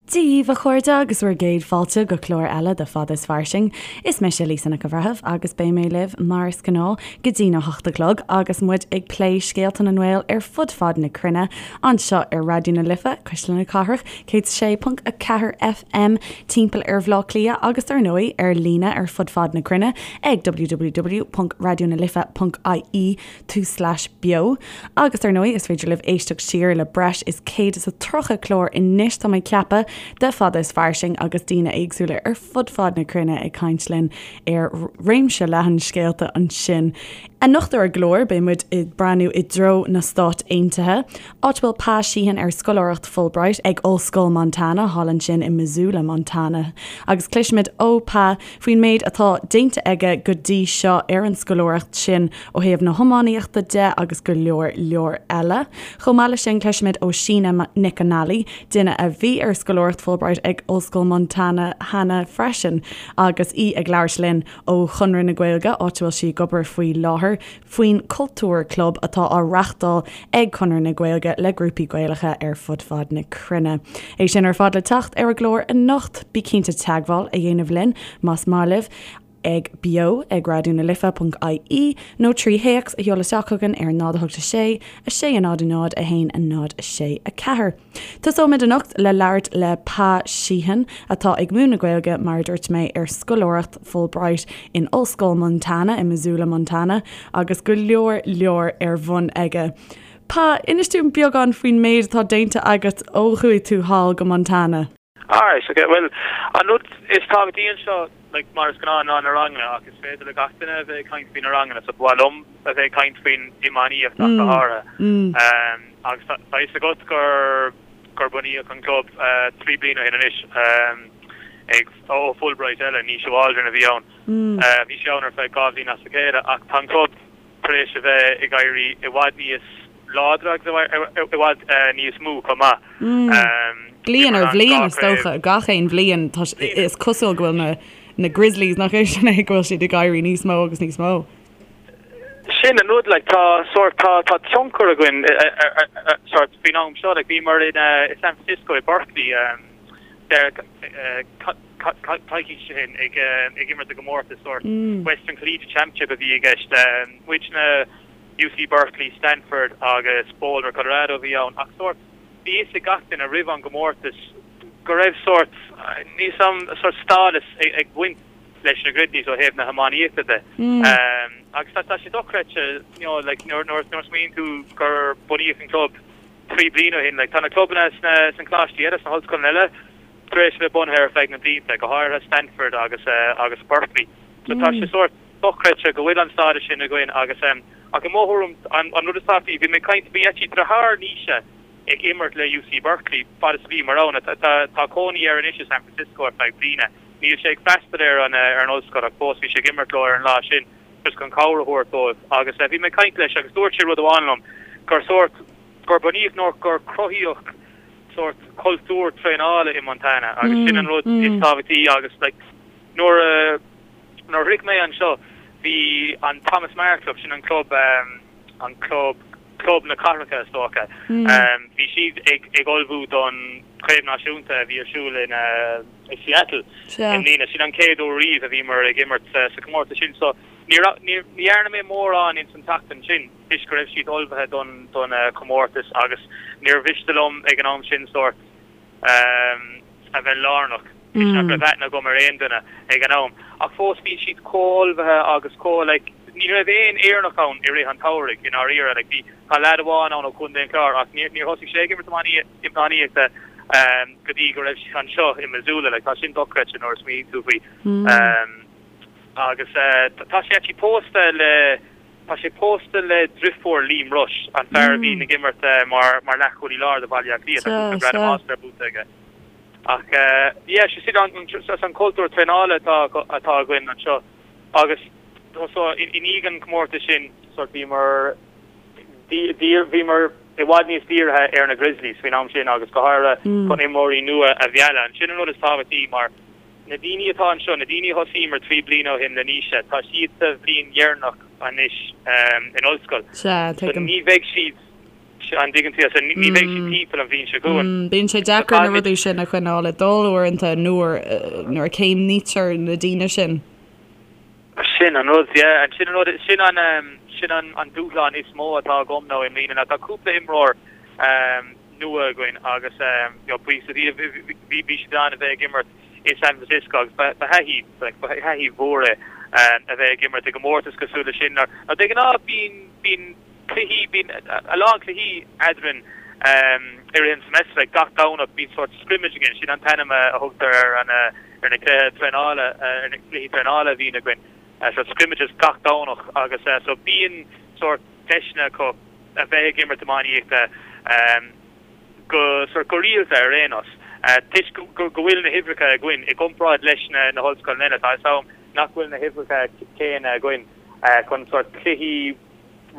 Dia dhaoibh a chairde agus bhur gcéad fáilte go clár eile de Fada is Fairsing. Is mise Lisa Nic an Bhreithimh agus beidh mé libh mar is gnáth go dtí na hocht a chlog agus muid ag plé scéalta na nGael ar fud fad na cruinne anseo ar Raidió na Life, Cuisle na Cathrach, 106.4 FM timpeall ar Bhaile Átha Cliath agus dar ndóigh ar líne ar fud fad na cruinne ag www.raidionalife.ie tulslais beo. Agus dar ndóigh is féidir libh éisteacht siar le breis is 130 clár anois tá mé ag ceapadh de Fada is Fairsing agus daoine éagsúla ar fud fad na cruinne ag caint linn ar réimse leathan scéalta ansin. Anocht ar an gclár beidh muid ag breathnú i dtreo na Stát Aontaithe, áit a bhfuil Pa Sheehan ar scoláireacht Fulbright ag Ollscoil Montana thall ansin i Missoula, Montana. Agus cloisfimid ó Pa faoin méid atá déanta aige go dtí seo ar an scoláireacht sin ó thaobh na hiománaíochta de agus go leor leor eile. Chomh maith leis sin cloisfimid ó Sheena Nic an Ailí, duine a bhí ar scoláireacht Fulbright ag Ollscoil Montana cheana freisin agus í ag labhairt linn ó Chonradh na Gaeilge, áit a bhfuil sí ag obair faoi láthair, faoin Cultúr Club atá á reachtáil ag Conradh na Gaeilge le grúpaí Gaelacha ar fud fad na cruinne. É sin ar fad le teacht ar an gclár anocht. Bí cinnte teagmháil a dhéanamh linn más maith libh ag beo ag raidionalife.ie nó trí théacs a sheoladh isteach chugainn ar 0 8 6 6 0 0 1 0 6 4. Tosóimid anocht le labhairt le Pa Sheehan, atá ag múineadh Gaeilge, mar a dúirt mé, ar scoláireacht Fulbright in Ollscoil Montana i Missoula, Montana, agus go leor leor ar bun aige. Pa, inis dúinn beagán faoin méid atá déanta agat ó chuaigh tú thall go Montana. Alright, ok, bhuel, an rud is tábhachtaí anseo, like, mar is gnáth, ná na ranganna, ach is féidir le gach duine a bheith ag caint faoi na ranganna, so ba mhaith liom a bheith ag caint faoin iománaíocht ach go háirithe. Agus tá a fhios agat gur, gur bunaíodh an club 3 bliana ó shin anois, ag, ó Fulbright eile, Naoise Waldron a bhí ann. Bhí sé ann ar feadh 2 bhliain as a chéile, ach tá an club tar éis a bheith ag éirí i bhfad níos láidre agus i bhfad níos mó chomh maith. Bliain ar bhliain is dócha, gach aon bhliain is cosúil go bhfuil na Grizzlies, nach é sin é, go bhfuil siad ag éirí níos mó agus níos mó. Sin an rud, like, tá sórt, tá, tá tionchar againn sórt faoin am seo, like, bhíomar in San Francisco, i Berkeley, coicís ó shin ag imirt i gcomórtas sórt Western Collegiate Championship a bhí i gceist. Muidne, UC Berkeley, Stanford agus Boulder, Colorado a bhí ann ach sórt bhí fhios ag gach duine roimh an gcomórtas go raibh sórt, níl 'fhios a'm, sórt stádas ag baint leis na Grizzlies ó thaobh na hiománaíochta de. Agus tá sé dochreidte, you know, like nuair a smaoiníonn tú gur bunaíodh an club 3 bliana ó shin, like tá na clubanna sna coláistí eile, sna hollscoileanna eile, tar éis a bheith bunaithe ar feadh na blianta, go háirithe Stanford agus agus Berkeley. So tá sé sórt dochreidte go bhfuil an stádas sin againn agus ach i mo thuairim an an rud is tábhachtaí, bhí mé ag caint, bhí actually deartháir Naoise ag imirt le UC Berkeley fad is a bhíomar ann. Tá tá cónaí air anois i San Francisco ar feadh bliana. Níl sé ag freastal ar an ar an ollscoil ach fós bhí sé ag imirt leo ar an lá sin just chun cabhair a thabhairt dóibh agus bhí mé ag caint leis agus dúirt sé rud amháin liom gur sórt gur bunaíodh nó gur cruthaíodh sórt cultúr traenála i Montana agus sin an rud is tábhachtaí agus like nuair a nuair a shroich mé anseo bhí an Thomas Meagher Club, sin an club an club club na cathracha is dócha, bhí siad ag ag ullmhú don chraobh náisiúnta a bhí ar siúl in i Seattle i mbliana. Sin an chéad uair riamh a bhíomar ag imirt sa chomórtas sin so ní raibh ní dhearna mé mórán ins an tseachtain sin. toisc go raibh siad ullmhaithe don don chomórtas agus níor mhiste liom ag an am sin sórt a bheith lárnach toisc nach raibh aithne agam ar aon duine ag an am. Ach fós bhí siad chomh ullmhaithe agus chomh like ní raibh aon Éireannach ann i rith an tsamhraidh i ndáiríre like bhí tá leaid amháin ann ó Chontae an Chláir ach níor níor thosaigh sé ag imirt iománaíochta go dtí go raibh sé anseo i Missoula like tá sin dochreidte nuair a smaoiníonn tú faoi. Agus tá sé actually pósta le Tá sé pósta le driofúr Liam Rushe, an fear a bhíonn ag imirt mar mar leathchúlaí láir do Bhaile Átha Cliath. Tá cúpla gradam All-Star buaite aige. Ach yeah, sé sin an an cultúr traenála atá atá againn anseo. Agus so i ndiaidh an chomórtais sin sort bhíomar bhíomar i bhfad níos dírithe ar na Grizzlies faoin am sin agus go háirithe chun imreoirí nua a mhealladh. Sin an rud is tábhachtaí mar Na daoine atá anseo, na daoine a thosaíomar 3 bliana ó shin le Naoise, tá siad sa bhliain dheireanach anois in ollscoil. Sea, So tuigim. ní bheidh siad, An dtuigeann tú? So ní bheidh siad timpeall an bhliain seo chugainn. Bíonn sé deacair na rudaí sin a choinneáil ag dul uaireanta nuair nuair a chéimnítear na daoine sin. Sin an rud, yeah. Sin an rud, sin an, sin an an dúshlán is mó atá agam now i mbliana ná tá cúpla imreoir nua againn agus you know buíochas le Dia bhí bhí siad in ann a bheith ag imirt i San Francisco agus ba ba thaithí like ba thaithí mhór é a bheith ag imirt i gcomórtas cosúil leis sin. Nó de ghnáth bíonn bíonn cluichí, bíonn a lán cluichí eadrainn i rith an semester, like gach Domhnach bíonn sórt scrimmage againn, sin an t-ainm a thugtar ar an ar na cluiche traenála, ar na cluichí traenála a bhíonn againn, sórt scrimmages gach Domhnach agus so bíonn sórt deiseanna acu a bheith ag imirt iománaíochta go sórt go rialta ar aon nós. Toisc go go bhfuil na huimhreacha againn i gcomparáid leis na na hollscoileanna eile, tá a fhios agam nach bhfuil na huimhreacha céanna againn chun sórt cluichí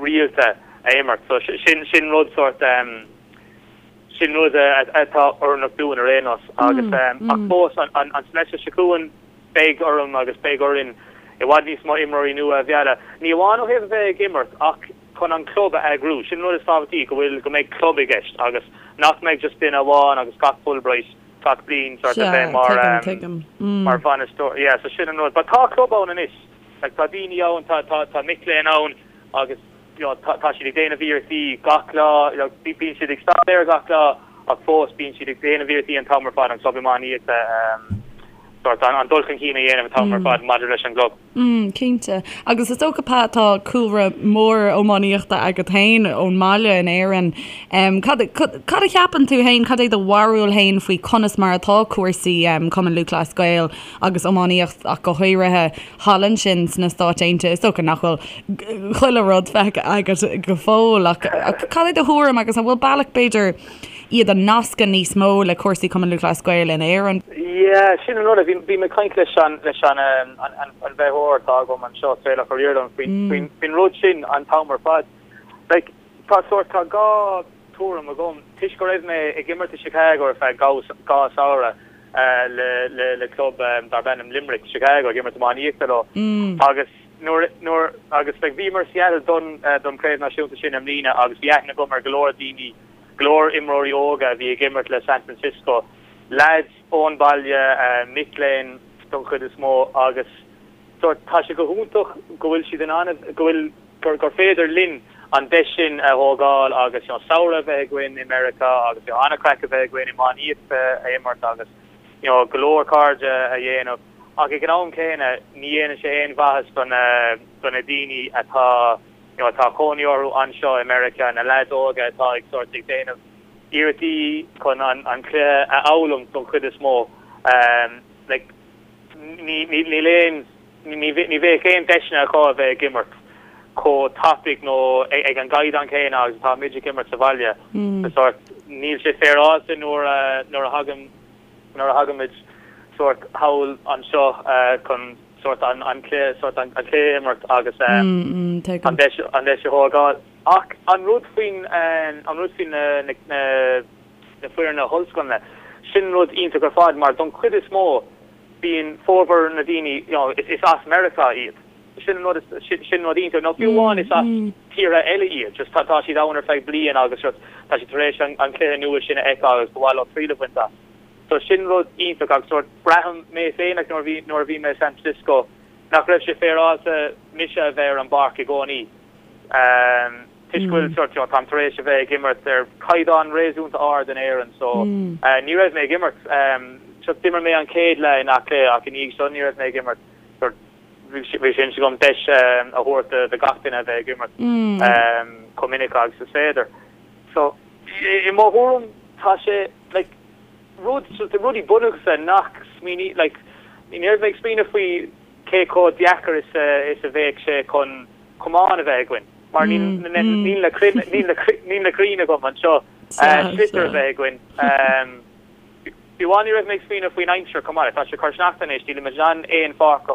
rialta a imirt. So sin sin rud sórt sin rud atá oiriúnach dúinn ar aon nós agus ach fós an an an semester seo chugainn beidh orm agus beidh orainn i bhfad níos mó imreoirí nua a mhealladh. Ní amháin ó thaobh a bheith ag imirt ach chun an club a eagrú. Sin an rud is tábhachtaí go bhfuil go mbeidh club i gceist agus nach mbeidh just duine amháin agus gach Fulbright gach bliain sórt a bheith mar mar bhainisteoir. Yeah, so sin an rud. But tá club ann anois. Like tá daoine ann, tá tá tá mic léinn ann agus you know tá tá siad ag déanamh iarrachtaí gach lá, you know bíonn siad ag staidéar gach lá ach fós bíonn siad ag déanamh iarrachtaí an t-am ar fad an club iománaíochta ehm sort an an dul chun cinn a dhéanamh an t-am ar fad maidir leis an gclub. Mm, cinnte. Agus is dócha Pat tá cúlra mór iománaíochta agat féin ón mbaile in Éirinn. Em cad cad a cheapann tú féin, cad é do bharúil féin faoi conas mar atá cúrsaí em Cumann Lúthchleas Gael agus iománaíocht ach go háirithe thall ansin sna Stáit Aontaithe. Is dócha nach bhfuil chuile rud feicthe agat go fóill ach cad é do thuairim agus an bhfuil bealach b'fhéidir iad a nascadh níos mó le cúrsaí Cumann Lúthchleas Gael in Éirinn? Yeah, sin an rud. Bhí mé ag caint leis an leis an an bhfeitheoir atá agam anseo, Traolach Ó Ríordáin, faoin faoin rud sin an t-am ar fad. Like, tá sórt, tá dhá tuairim agam. Toisc go raibh mé ag imirt i Chicago ar feadh dhá samhradh, le le club darb ainm Limerick, Chicago ag imirt iománaíochta leo agus nuair nuair agus like bhíomar i Seattle don don chraobh náisiúnta sin i mbliana agus bhí aithne agam ar go leor daoine, go leor imreoirí óga a bhí ag imirt le San Francisco, leaids ón baile, mic léinn don chuid is mó agus sórt tá sé go hiontach go bhfuil siad in ann go bhfuil gur gur féidir linn an deis sin a thógáil agus you know samhradh a bheith againn i Meiriceá agus you know an-chraic a bheith againn iománaíocht a imirt agus you know go leor cairde a dhéanamh ach ag an am céanna ní dhéanann sé aon mhaitheas do na do na daoine atá you know atá cónaí orthu anseo i Meiriceá, na leaids óga atá ag sórt ag déanamh iarrachtaí chun an an cluiche a fhoghlaim don chuid is mó like ní ní níl aon Ní bheadh aon deiseanna acu a bheith ag imirt chomh tapaidh nó ag an gcaighdeán céanna agus atá muid ag imirt sa bhaile. Sórt, níl sé féaráilte nuair a nuair a thagann nuair a thagaimid sórt thall anseo chun sórt an an cluiche sórt an cluiche a imirt agus an deis an deis a thógáil. Ach an rud faoin an rud faoin na na na foirne ollscoileanna, sin rud iontach ar fad mar don chuid is mó bíonn formhór na daoine, you know, is as Meiriceá iad. Sin an rud is, sin rud iontach. Nó fiú amháin is as tíortha eile iad, just tá siad ann ar feadh bliain agus just tá siad tar éis an cluiche nua sin a fheiceáil agus ba mhaith leo triail a bhaint as. So sin rud iontach agus sórt braithim mé féin like nuair a bhí, nuair a bhí mé i San Francisco nach raibh sé féaráilte mise a bheith ar an bpáirc i gcónaí. Toisc go bhfuil sórt, you know, táim tar éis a bheith ag imirt ar caighdeán réasúnta ard in Éirinn so ní raibh mé ag imirt, so d'imir mé an chéad leath in Áth Cliath ach i ndiaidh seo ní raibh mé ag imirt, sórt bhí sé in intinn agam deis a thabhairt do gach duine a bheith ag imirt chomh minic agus is féidir. So i mo thuairim tá sé like rud, rudaí bunúsacha nach smaoiní, like ní raibh mé ag smaoineamh faoi cé chomh deacair is a bheadh sé chun camán a bheith againn, mar níl na crainn agam anseo, sliotar a bheith againn. Fiú amháin ní raibh mé ag smaoineamh faoin aimsir chomh maith, tá sé ag cur sneachta anois, nílimid in ann aon pháirc a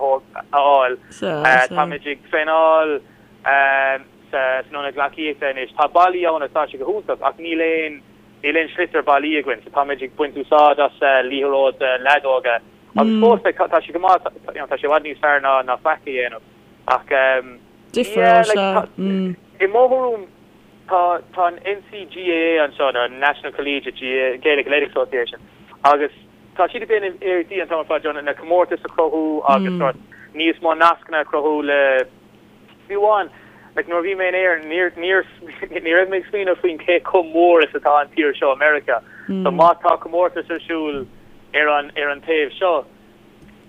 fháil, táimid ag traenáil san ionad gleacaíochta anois, tá ballaí ann agus tá sé go hiontach ach níl aon níl aon sliotar ballaí againn so táimid ag baint úsáid as liathróid leadóige agus fós tá sé go maith, tá sé i bhfad níos fearr ná faic a dhéanamh. Ach yeah, like, i mo thuairim, Tá tá an NCGAA anseo, nó National Collegiate Gaelic Athletic Association, agus tá siad ag déanamh iarrachtaí an t-am ar fad na comórtais a chruthú agus sort níos mó nascanna a chruthú le fiú amháin like nuair a bhí mé in Éirinn níor níor ní raibh mé ag smaoineamh faoin cé chomh mór is atá an tír seo Meiriceá. So má tá comórtas ar siúl ar an ar an taobh seo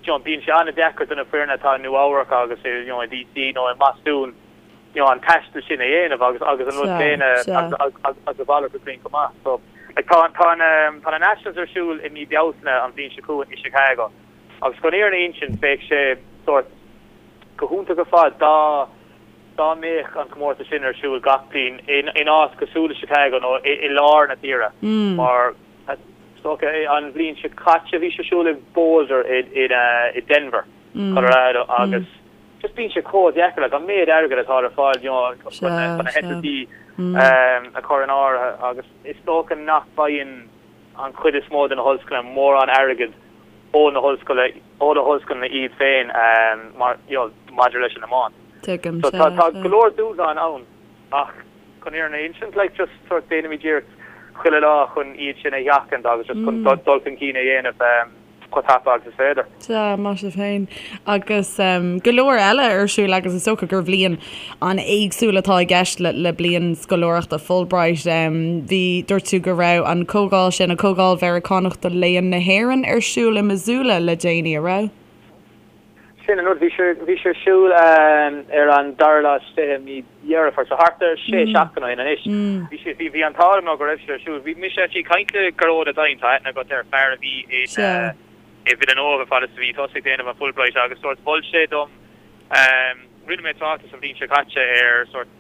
you know bíonn sé an-deacair do na foirne atá i Nua Eabhrac agus i you know i DC nó i mBostún you know, an taisteal sin a dhéanamh agus agus an rud céanna agus a mhalairt de chruinn chomh maith. So like tá tá na tá na Nationals ar siúl i mí Bealtaine an bhliain seo chugainn i Chicago agus chun an fhírinne a insint bheadh sé sórt go hiontach ar fad dá dá mbeadh an comórtas sin ar siúl gach bliain in in áit cosúil le Chicago nó i i lár na tíre mar is dócha an bhliain seo caite bhí sé ar siúl i Boulder i i i Denver, Colorado agus Just bíonn sé chomh deacair, like, an méid airgid atá ar fáil, you know, chun na heitiltí a chur in áirithe agus is dócha nach bhfaigheann an chuid is mó de na hollscoileanna mórán airgid ó na hollscoile, ó na hollscoileanna iad féin mar, you know, maidir leis an iomáint. Tuigim, So tá, tá go leor dúshlán ann ach chun an fhírinne a insint, like, just sort déanaimid iarracht chuile lá chun iad sin a sheachaint agus just chun dul chun cinn a dhéanamh. chomh tapa agus is féidir. Sea, maith sibh féin. Agus go leor eile ar siúl agus is dócha gur bhliain an-éagsúil atá i gceist le bliain scoláireachta Fulbright. Bhí, dúirt tú go raibh an comhdháil sin, an Comhdháil Mheiriceánach do Léann na hÉireann ar siúl i Missoula le déanaí, a raibh? Sin an rud, bhí sé, bhí sé ar siúl ar an dara lá is 20 mí Dheireadh Fómhair, so thart ar sé seachtaine ó shin anois. Bhí sé, bhí, bhí an t-ádh liom nó go raibh sé ar siúl. Bhí mise actually ag caint le Gearóid Ó Doinn, tá aithne agat air, fear a bhí in, i Villanova fad is a bhí tusa ag déanamh an Fulbright agus sórt mhol sé dom, rinne mé tráchtas an bhliain seo caite ar sórt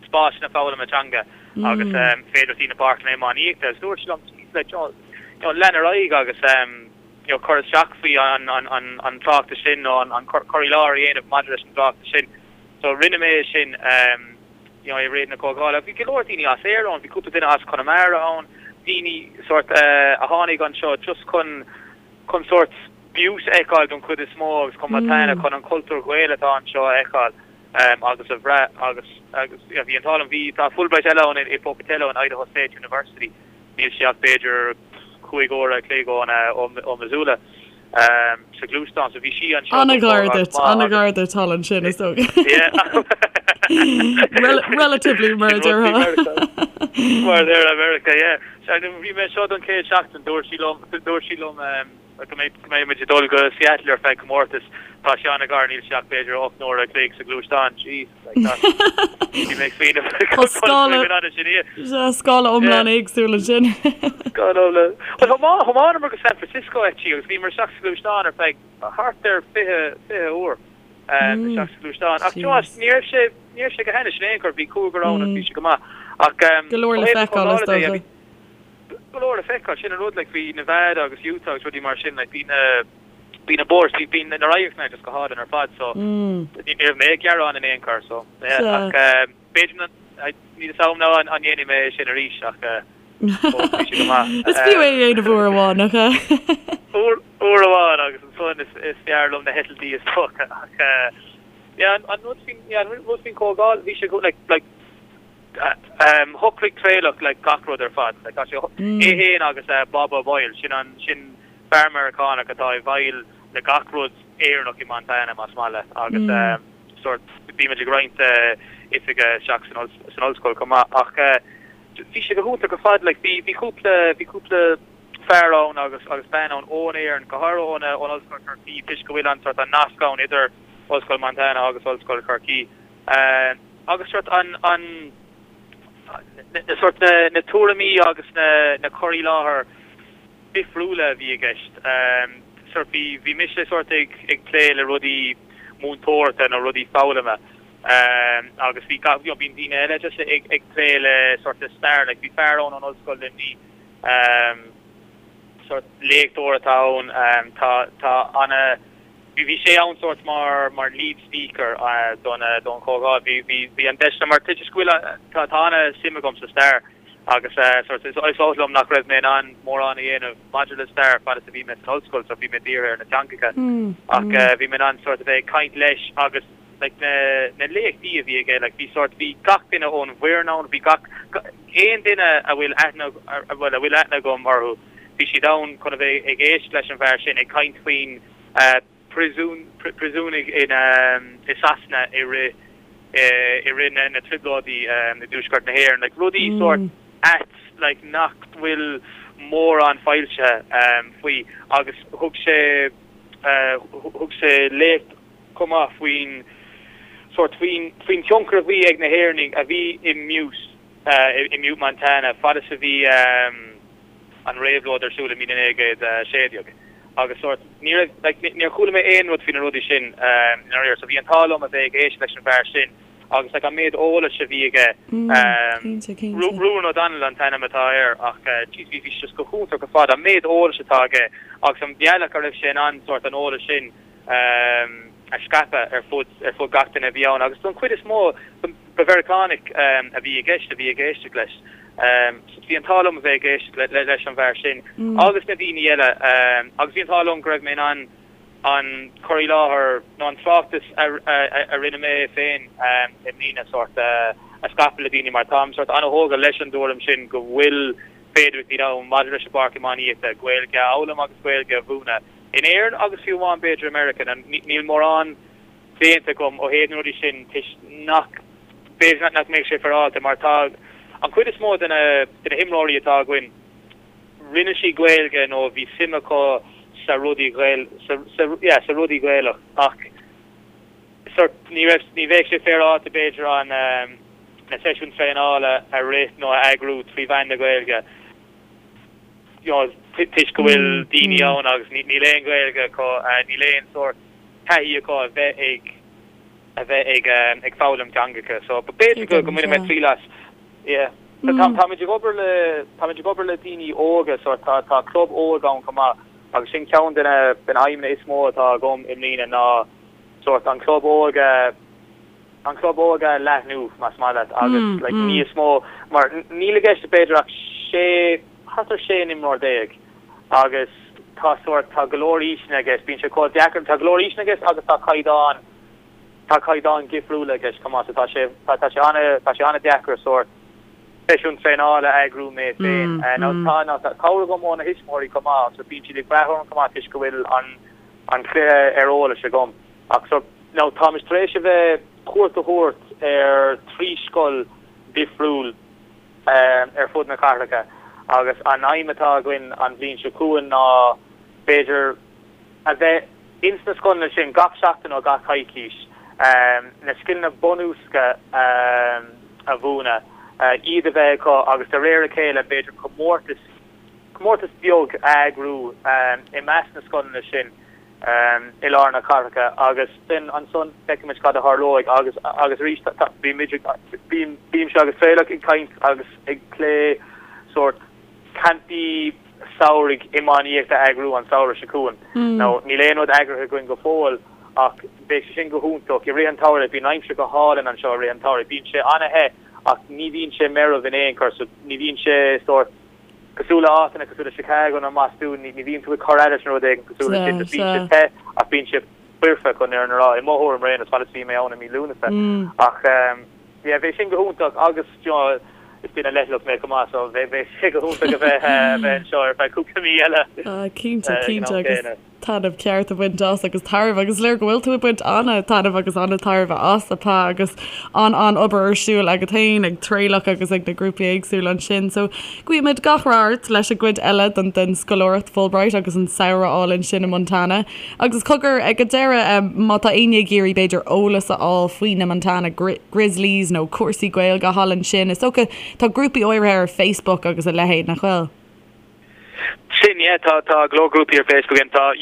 spásanna foghlama teanga agus féidearthachtaí na páirceanna iománaíochta agus dúirt sé liom, jeez, like, you know, lean ar aghaidh agus, you know, cur isteach faoi an tráchtas sin nó an cur i láthair a dhéanamh maidir leis an dtráchtas sin. So rinne mé é sin you know, i rith na comhdhála. Bhí go leor daoine as Éirinn ann, bhí cúpla duine as Conamara ann, daoine sórt a tháinig anseo just chun chun sórt Butte a fheiceáil don chuid is mó agus chun Montana, chun an cultúr Gael atá anseo a fheiceáil agus a bhrath agus agus yeah, bhí an t-ádh liom, bhí tá Fulbright eile ann i Pocatello in Idaho State University. Níl sé ach b'fhéidir 5 uair a chloig ó Missoula sa ghluaisteán, so bhí sí anseo don An-ghar duit, an-ghar duit thall ansin, is dócha. Relatively, mar a déarfá. Mar a déarfá, America, yeah. Bhí mé anseo don chéad seachtain, dúirt sí liom, dúirt sí liom, go mbeidh muid ag dul go Seattle ar feadh comórtas. Tá sé an-ghar, níl sé ach b'fhéidir 8 n-uaire a chloig sa ghluaisteán. Jeez, like that. Bhí mé ag smaoineamh Tá scála scála iomlán éagsúil ansin. Scála iomlán. Well, thiomáineamar go San Francisco actually agus bhíomar isteach sa ghluaisteán ar feadh thart ar 20 20 uair isteach sa ghluaisteán. Ach you know, ní raibh sé ní raibh sé go hainnis in aon chor, bhí cúigear ann agus bhí sé go maith. Ach Go leor le feiceáil is dócha. go leor le feiceáil. Sin an rud, like, bhí Nevada agus Utah agus rudaí mar sin, like, bhí na, bhí na bóithre, bhí, bhí na radharcanna just go hálainn ar fad, so ní raibh mé ag gearán in aon chor, so, yeah, ach b'fhéidir na, níl fhios agam now an ndéanfaidh mé é sin arís, ach fós bhí sé go maith. Is fiú é a dhéanamh uair amháin, nach ea? Uair, uair amháin agus ansan is, is fearr liom na heitiltí is dócha, ach yeah, an, an rud faoin, yeah, an rud faoin chomhdháil, bhí sé go, like, like, Shocraigh Traolach like gach rud ar fad. Like tá sé é fhéin agus Bob O'Boyle, sin an sin fear Meiriceánach atá i bhfeighil le gach rud Éireannach i Montana más maith leat agus sórt bímid ag roinnt oifige isteach san san ollscoil chomh maith ach bhí sé go hiontach ar fad like bhí bhí cúpla bhí cúpla fear ann agus agus bean ann ón Éirinn go háirithe ón ón Ollscoil Chorcaí toisc go bhfuil an sórt an nasc ann idir Ollscoil Montana agus Ollscoil Chorcaí. Agus sórt an, an, na sórt na, na tuairimí agus na, na cur i láthair difriúla a bhí i gceist. Sórt bhí, bhí mise sórt ag, ag plé le rudaí múinteoireachta nó rudaí foghlama agus bhí gach, you know, bíonn daoine eile just ag, ag plé le sórt le stair, like bhí fear ann ón Ollscoil Luimnigh, sórt léachtóir atá ann, tá, tá ana, Bhí bhí sé ann sórt mar mar lead speaker don don chomhdháil. Bhí bhí bhí an deis mar toisc go bhfuil tá tá ana suim agam sa stair agus sórt is is oth liom nach raibh mé in ann mórán a dhéanamh maidir le stair fad is a bhí mé san ollscoil so bhí mé dírithe ar na teangacha ach bhí mé in ann sórt a bheith ag caint leis agus. like na na léachtaí a bhí aige like bhí sórt bhí gach duine ón bhfoireann ann bhí gach aon duine a bhfuil aithne bhuel a bhfuil aithne agam orthu bhí siad ann chun a bheith ag éisteacht leis an bhfear sin ag caint faoin príosún príosúnaigh in i Sasana i rith i rith na na trioblóidí i dtuaisceart na hÉireann like rudaí sórt ait like nach bhfuil mórán foilsithe faoi agus thug sé thug sé léacht chomh maith faoin sórt faoin faoin tionchar a bhí ag na hÉireannaigh a bhí i Butte i mButte Montana fad is a bhí an réabhlóid ar siúl i 1916 agus sórt ní raibh like níor chuala mé aon rud faoi na rudaí sin i ndáiríre so bhí an t-ádh liom a bheith ag éisteacht leis an bhfear sin agus like an méid eolais a bhí aige Ruan O'Donnell an t-ainm atá air ach jeez bhí bhí sé just go hiontach ar fad an méid eolais atá aige agus an bealach a raibh sé in ann sórt an eolas sin a scaipeadh ar fud ar fud gach duine a bhí ann agus don chuid is mó ba Mheiriceánaigh a bhí i gceist a bhí ag éisteacht leis. So bhí an t-ádh liom a bheith ag éisteacht leis an bhfear sin agus na daoine eile agus bhí an t-ádh liom go raibh mé in ann an cur i láthair nó an tráchtas a rinne mé féin i mbliana sórt a scaipeadh le daoine mar táim sórt an-thógtha leis an dtuairim sin go bhfuil féidearthachtaí ann maidir leis an bpáirc iománaíochta, Gaeilge a fhoghlaim agus Gaeilge a mhúineadh. In Éirinn agus fiú amháin b'fhéidir i Meiriceá, níl mórán déanta agam ó thaobh na rudaí sin toisc nach, b'fhéidir nach mbeadh sé féaráilte mar tá an chuid is mó de na de na himreoirí atá againn, rinne siad Gaeilge nó bhí suim acu sa rudaí Ghael, sa, sa, yeah, sa rudaí Gaelach ach sort ní raibh, ní bheadh sé féaráilte b'fhéidir an na seisiúin traenála a rith nó a eagrú trí mheán na Gaeilge. you know, toisc go bhfuil daoine ann agus níl aon Ghaeilge acu, níl aon sórt taithí acu a bheith ag, a bheith ag, ag foghlaim teangacha. So b'fhéidir go, go mbainfidh mé triail as. Yeah. Tá, táimid ag obair le, táimid ag obair le daoine óga, so tá, tá club óg ann chomh maith agus sin ceann de na, de na haidhmeanna is mó atá agam i mbliana ná sórt an club óg a, an club óg a leathnú, más maith leat, agus like níos mó, mar níl i gceist b'fhéidir ach sé, thart ar 16 n-imreoir agus tá sórt, tá go leor aoiseanna i gceist, bíonn sé chomh deacair, tá go leor aoiseanna i gceist agus tá caighdeán, tá caighdeán difriúla i gceist chomh maith, so tá sé, tá, tá sé ana, tá sé ana-deacair sórt seisiún traenála a eagrú mé féin. Now tá, now tá cabhair agam ó na thuismitheoirí chomh maith, so bíonn siad ag brath orm chomh maith toisc go bhfuil an, an cluiche ar eolas agam. Ach so, now táimid tar éis a bheith cuairt a thabhairt ar thrí scoil difriúil ar fud na cathracha agus an aidhm atá againn an bhliain seo chugainn ná b'fhéidir a bheith ins na scoileanna sin gach seachtain nó gach coicís, na scileanna bunúsacha a mhúineadh, iad a bheith acu agus de réir a chéile b'fhéidir comórtas, comórtas beag a eagrú i measc na scoileanna sin. i lár na cathracha agus then ansan feicfimid cad a tharlóidh agus agus arís bímid ag bím bímse agus Traolach ag caint agus ag plé sórt campaí samhraidh iománaíochta a eagrú an samhradh seo chugainn. Now níl aon rud eagraithe againn go fóill ach beidh sé sin go hiontach i rith an tsamhraidh bíonn aimsir go hálainn anseo i rith an tsamhraidh bíonn sé an-the ach ní bhíonn sé meirbh in aon chor so ní bhíonn sé sórt Cosúil le áiteanna cosúil le Chicago nó i mBostún, ní bhíonn tú ag cur leis nó rud éigin cosúil leis sin. Just bíonn sé te ach bíonn sé foirfe chun an fhírinne a rá. I mo thuairim ar aon nós, fad is a bhí mé ann i mí Lúnasa. Ach yeah, bheadh sin go hiontach agus you know, is duine leithleach mé chomh maith so bheadh sé go hiontach a bheith bheith anseo ar feadh cúpla mí eile. Ah, cinnte, cinnte agus taitneamh ceart a bhaint as agus tairbhe agus is léir go bhfuil tú ag baint an-taitneamh agus an-tairbhe as, a Pa, agus an-an-obair ar siúl agat féin ag Traolach agus ag na grúpaí éagsúla ansin. So guímid gach rath ort leis an gcuid eile den den scoláireacht Fulbright agus an samhradh álainn sin i Montana. Agus cogar ag an deireadh, má tá éinne ag iarraidh b'fhéidir eolas a fháil faoi na Montana Grizzlies nó cúrsaí Gaeilge thall ansin, is dócha tá grúpaí áirithe ar Facebook agus a leithéid, nach bhfuil? Sin, yeah, tá, tá go leor grúpaí ar Facebook againn. Tá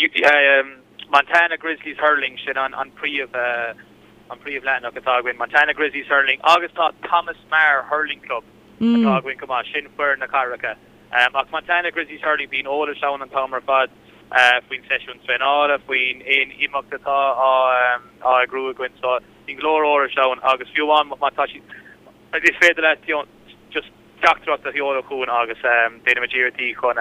Montana Grizzlies Hurling, sin an, an príomh, an príomh leathanach atá againn, Montana Grizzlies Hurling, agus tá Thomas Meagher Hurling Club atá againn chomh maith, sin foireann na cathracha. Ach Montana Grizzlies Hurling, bíonn eolas ann an t-am ar fad faoin seisiún traenála, faoin aon imeacht atá á, á eagrú againn, so bíonn go leor eolais ann agus fiú amháin má tá siad, is féidir leat, you know, just teachtaireacht a sheoladh chugainn agus déanfaimid iarrachtaí chun.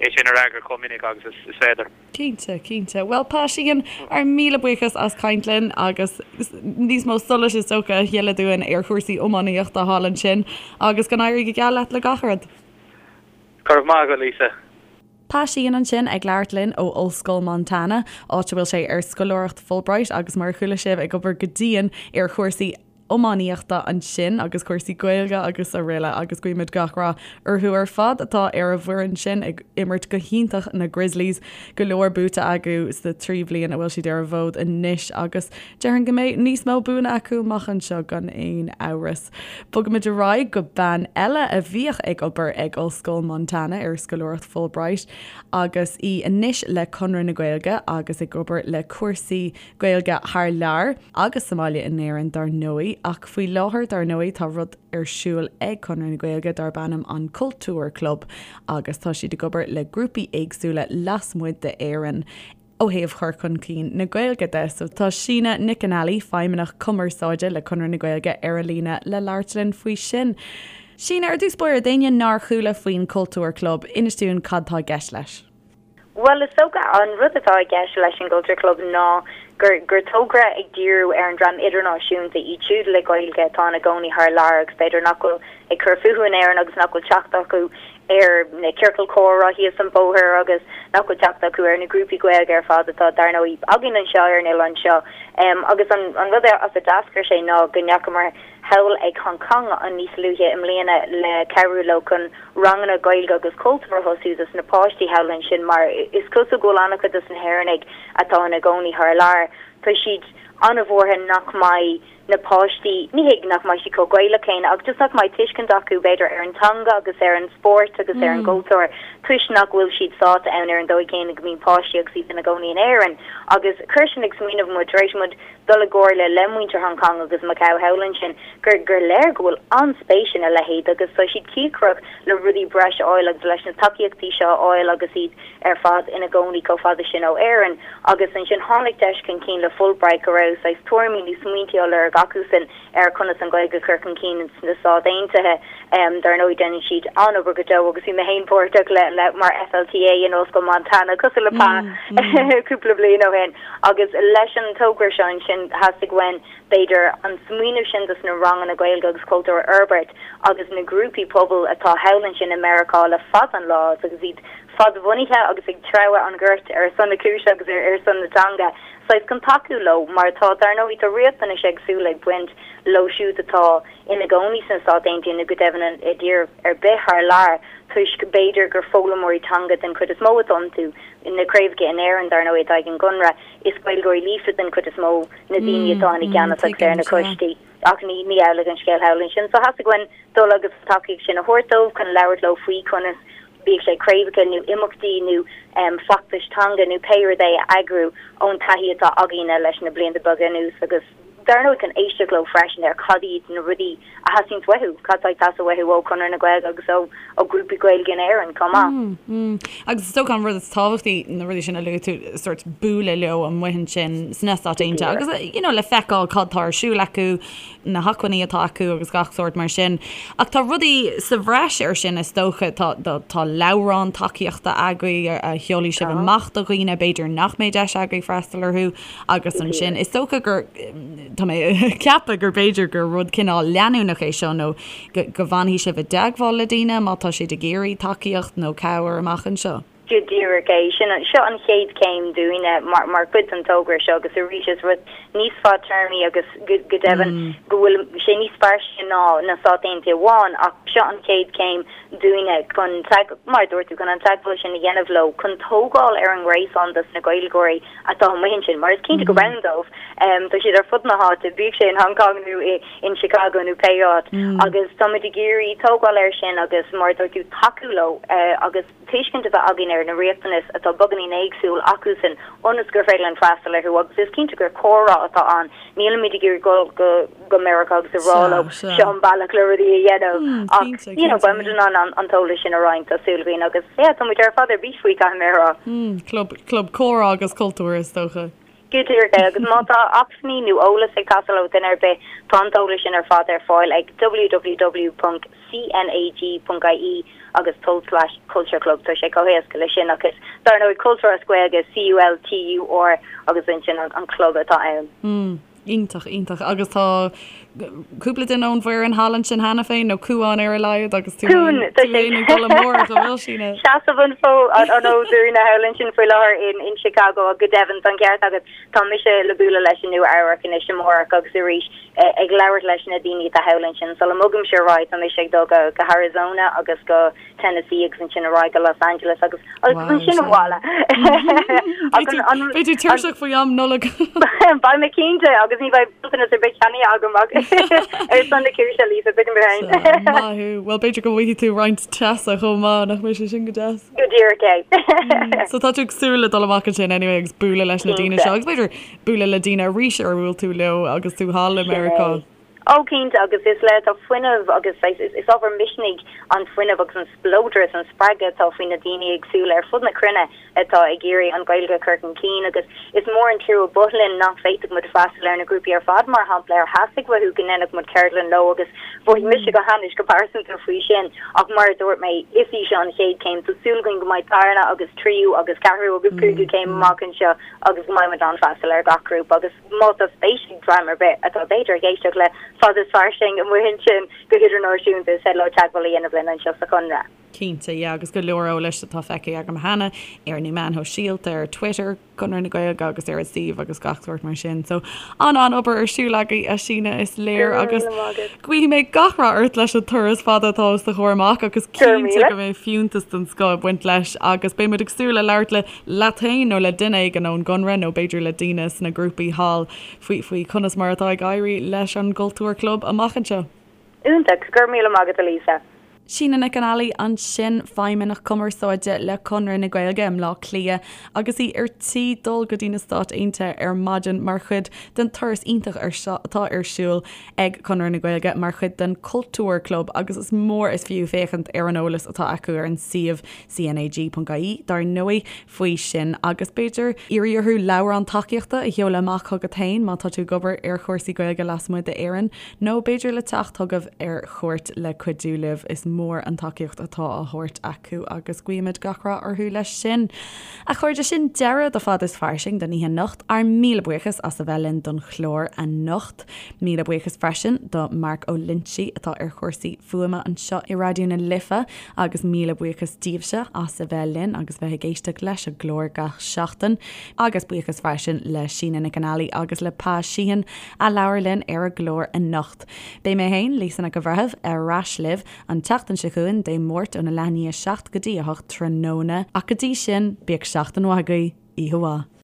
é sin a fhreagairt chomh minic agus is féidir. Cinnte, cinnte. Bhuel, Pa Sheehan, ár míle buíochas as caint linn agus níos mó solais is dócha a shileadh dúinn ar chúrsaí iománaíochta thall ansin agus go n-éirí go geal leat le gach rud. Go raibh maith agat, Lisa. Pa Sheehan ansin ag labhairt linn ó Ollscoil Montana, áit a bhfuil sé ar scoláireacht Fulbright agus mar a chuala sibh ag obair go dian ar chúrsaí iománaíochta ansin agus cúrsaí Gaeilge agus araile agus guímid gach rath orthu ar fad atá ar an bhfoireann sin ag imirt go hiontach na Grizzlies. Go leor buaite acu sna 3 bhliain a bhfuil siad ar an bhfód anois agus déarfainn go mbeidh níos mó buanna acu amach anseo gan aon amhras. Bogaimid ar aghaidh go bean eile a bhíodh ag obair ag Ollscoil Montana ar scoláireacht Fulbright agus í anois le Conradh na Gaeilge agus ag obair le cúrsaí Gaeilge thar lear, agus sa mbaile in Éirinn dar ndóigh, ach faoi láthair dar ndóigh tá rud ar siúl ag Conradh na Gaeilge darb ainm an Cultúr Club agus tá siad ag obair le grúpaí éagsúla lasmuigh d'Éirinn ó thaobh chur chun cinn na Gaeilge de. So tá Síne Nic an Ailí, Feidhmeannach Cumarsáide le Conradh na Gaeilge ar an líne le labhairt linn faoi sin. Síne, ar dtús báire, d'éinne nár chuala faoin Cultúr Club, inis dúinn cad tá i gceist leis. Bhuel, is dócha, an rud atá i gceist leis an gCultúr Club ná gur gur togra ag díriú ar an dream idirnáisiúnta, iad siúd le Gaeilge atá ina gcónaí thar lear agus b'fhéidir nach bhfuil ag cur fúthu in Éirinn agus nach bhfuil teacht acu ar na ciorcail comhrá thíos an bóthar agus nach bhfuil teacht acu ar na grúpaí Gaeilge ar fad atá, dar ndóigh, againn anseo ar an oileán seo. Agus an an rud as a d'eascair sé ná go ndeachamar thall ag Hong Kong an níos luaithe i mbliana le cabhrú leo chun ranganna Gaeilge agus cultúr a thosú dos na páistí thall ansin mar is cosúil go bhfuil an-chuid dos na hÉireannaigh atá ina gcónaí thar lear, tá siad an-bhuartha nach mbeidh na páistí, ní hé nach mbeidh siad chomh Gaelach céanna ach just nach mbeidh tuiscint acu b'fhéidir ar an teanga agus ar an spórt agus ar an gcultúr toisc nach bhfuil siad sáite ann ar an dóigh chéanna go mbíonn páistí agus iad ina gcónaí in Éirinn agus chuir sin ag smaoineamh muid tar éis muid dul i gcomhairle le muintir Hong Kong agus Macau thall ansin gur gur léir go bhfuil an-spéis ina leithéid agus tá siad cíocrach le rudaí breise a fháil agus leis na tacaíochtaí seo a fháil agus iad ar fad ina gcónaí chomh fada sin ó Éirinn. Agus ansin tháinig deis chun cinn le Fulbright go raibh saghas tuairimí nó smaointí á lorg acusan ar conas an Ghaeilge a chur chun cinn sna Stáit Aontaithe. Dar ndóigh déanann siad an-obair go deo agus bhí mé féin páirteach le le mar FLTA in Ollscoil Montana cosúil le Pa cúpla bliain ó shin agus leis an togra seo ansin theastaigh uainn b'fhéidir an smaoineamh sin dos na ranganna Gaeilge agus cultúr a fhorbairt agus na grúpaí pobail atá thall ansin i Meiriceá le fada an lá agus iad fadbhunaithe agus ag treabhadh an ghoirt ar son na cúise agus ar son na teanga saghas chun tacú leo mar tá dar ndóigh tá riachtanais éagsúla ag baint leo siúd atá ina gcónaí sna Stáit Aontaithe nó go deimhin i dtír ar bith thar lear toisc b'fhéidir gur foghlaimeoirí teanga den chuid is mó atá iontu. Na craobhacha in Éirinn dar ndóigh atá ag an gConradh, is Gaeilgeoirí líofa den chuid is mó na daoine atá ina gceannas agus ar na coistí ach ní ní amhlaidh an scéal thall ansin. So theastaigh uainn dul agus an tacaíocht sin a thabhairt dóibh chun labhairt leo faoi conas bíodh sé craobhacha nó imeachtaí nó feachtais teanga nó pé rud é a eagrú ón taithí atá againne leis na blianta beaga anuas agus dar ndóigh chun éisteacht leo freisin ar cad iad na rudaí a theastaíonns uathu, cad atá ag teastáil uathu ó Chonradh na Gaeilge agus ó ó ghrúpaí Gaeilge in Éirinn chomh maith. Agus is dócha an rud is tábhachtaí, na rudaí sin a luaigh tú, sórt bualadh leo amuigh ansin sna Stáit Aontaithe agus you know le feiceáil cad tá ar siúl acu, na hacmhainní atá acu agus gach sórt mar sin. Ach tá rudaí sa bhreis ar sin is dócha, tá tá leabhrán tacaíochta agaibh a sheolfaidh sibh amach do dhaoine, b'fhéidir nach mbeidh deis agaibh freastal orthu. Agus ansin, is dócha gur, tá mé ag ceapadh gur b'fhéidir gur rud cineál leanúnach é seo nó go bhfanfaidh sibh i dteagmháil le daoine má tá siad ag iarraidh tacaíocht nó cabhair amach anseo. Go díreach é. Sin, seo an chéad chéim dúinne mar, mar chuid den togra seo agus arís is rud níos fadtéarmaí agus go, go deimhin go bhfuil sé níos fairsinge ná na Stáit Aontaithe amháin ach seo an chéad chéim dúinne chun, mar a dúirt tú, chun an teagmháil sin a dhéanamh leo, chun tógáil ar an ngréasán dos na Gaeilgeoirí atá amuigh ansin, mar is cinnte gurb ann dóibh. Tá siad ar fud na háite, bíodh sé in Hong Kong nó in Chicago nó pé áit, agus táimid ag iarraidh tógáil air sin agus, mar a dúirt tú, tacú leo agus tuiscint a bheith againn ar na riachtanais atá beagáinín éagsúil acusan ionas gur féidir linn freastal orthu agus is cinnte gur comhrá atá ann, nílimid ag iarraidh dul go go Meiriceá agus a rá leo seo an bealach le rudaí a dhéanamh ach you know beimid in ann an t-eolas sin a roinnt tá súil againn agus yeah tá muid ar fad ar bís faoi caithfidh mé a rá. Club, club comhrá agus cultúir is dócha. Go díreach é, agus má tá acmhainní nó eolas ag teastáil ó dhuine ar bith, tá an t-eolas sin ar fad ar fáil ag www.cnag.ie agus tulslais Cultúr Club. Tá sé chomh héasca leis sin agus dar ndóigh Cultúr as Gaeilge, C-U-L-T-U-R agus ansin an club atá ann. Iontach, iontach. Agus tá cúpla duine ón bhfoireann thall ansin cheana féin, nó Cuán ar a laghad, agus tú féin tú féin ag dul amárach, an bhfuil, Síne? Seasamh an fód an fhóid dúinne thall ansin faoi láthair in in Chicago ach go deimhin tá an ceart agat, tá mise le bualadh leis i Nua Eabhrac anois amárach agus arís ag labhairt leis na daoine atá thall ansin. Sula mbogaimse ar aghaidh tá mise ag dul go go hArizona agus go Tennessee agus ansin ar aghaidh go Los Angeles agus agus ansin abhaile. Beidh tú tuirseach faoi am Nollag. Beidh mé cinnte agus ní bheidh bronntanas ar bith ceannaithe agam ach ar son na cúise Lisa, tuigim mé féin. Maith thú. Bhuel b'fhéidir go bhfaighidh tú roinnt teasa chomh maith, nach mbeidh sé sin go deas? Go díreach é. So tá tú ag súil le dul amach ansin anyway agus bualadh leis na daoine seo agus b'fhéidir bualadh le daoine arís ar bhuail tú leo agus tú thall i Meiriceá. Ó, cinnte, agus is le tá fuinneamh agus saghas, is ábhar misnigh an fuinneamh agus an spleodar is an spreagadh atá faoi na daoine éagsúla ar fud na cruinne atá ag iarraidh an Ghaeilge a chur chun cinn agus is mór an trua ba linn nach bhféadfadh muid freastal ar na grúpaí ar fad, mar shampla, ar theastaigh uathu go ndéanfadh muid ceardlann leo agus mhothaigh mise go hainnis go pearsanta faoi sin ach mar a dúirt mé, is í seo an chéad chéim, tá súil againn go mbeidh darna agus tríú agus ceathrú agus cúigiú céim amach anseo agus go mbeidh muid in ann freastal ar gach grúpa agus. Má tá spéis ag dream ar bith atá b'fhéidir ag éisteacht le Fada is Fairsing amuigh ansin go hidirnáisiúnta, is féidir leo teagmháil a dhéanamh linn anseo sa Chonradh. Cinnte, yeah, agus go leor eolais atá feicthe agam cheana ar na meáin shóisialta, ar Twitter, Conradh na Gaeilge agus ar an suíomh agus gach sórt mar sin. So, an-an-obair ar siúl agaibh, a Shíne, is léir agus guífidh mé gach rath ort leis an turas fada atá os do chomhair amach agus cinnte go mbeidh fiúntas den scoth ag baint leis agus beidh muid ag súil le labhairt le leat féin nó le duine éigin ón gConradh nó b'fhéidir le daoine sna grúpaí thall faoi faoi conas mar atá ag éirí leis an gCultúr Club amach anseo. Iontach, go raibh míle maith agat a Lisa. Síne Nic an Ailí ansin, Feidhmeannach Cumarsáide le Conradh na Gaeilge i mBleá Cliath agus í ar tí dul go dtí na Stáit Aontaithe ar maidin mar chuid den turas iontach ar seo atá ar siúl ag Conradh na Gaeilge mar chuid den Cultúr Club agus is mór is fiú féachaint ar an eolas atá acu ar an suíomh CNAG.ie, dar ndóigh, faoi sin agus b'fhéidir iarraidh orthu leabhrán tacaíochta a sheoladh amach chugat féin má tá tú ag obair ar chúrsaí Gaeilge lasmuigh d'Éirinn nó b'fhéidir le teacht chugaibh ar chuairt le cuidiú libh. Is mór an tacaíocht atá á thabhairt acu agus guímid gach rath orthu leis sin. A chairde, sin deireadh do Fada is Fairsing don oíche anocht. Ár míle buíochas as a bheith linn don chlár anocht. Míle buíochas freisin do Mark Ó Loinsigh atá ar chúrsaí fuaime anseo i Raidió na Life agus míle buíochas daoibhse as a bheith linn agus bheith ag éisteacht leis an gclár gach seachtain. Agus buíochas freisin le Síne Nic an Ailí agus le Pa Sheehan a labhair linn ar an gclár anocht. Beidh mé féin, Lisa Nic an Bhreithimh, ar ais libh an tseachtain seo chugainn, Dé Máirt óna leath i ndiaidh 7 go dtí 8 tráthnóna. Ach go dtí sin, bíodh seachtain mhaith agaibh. Oíche mhaith.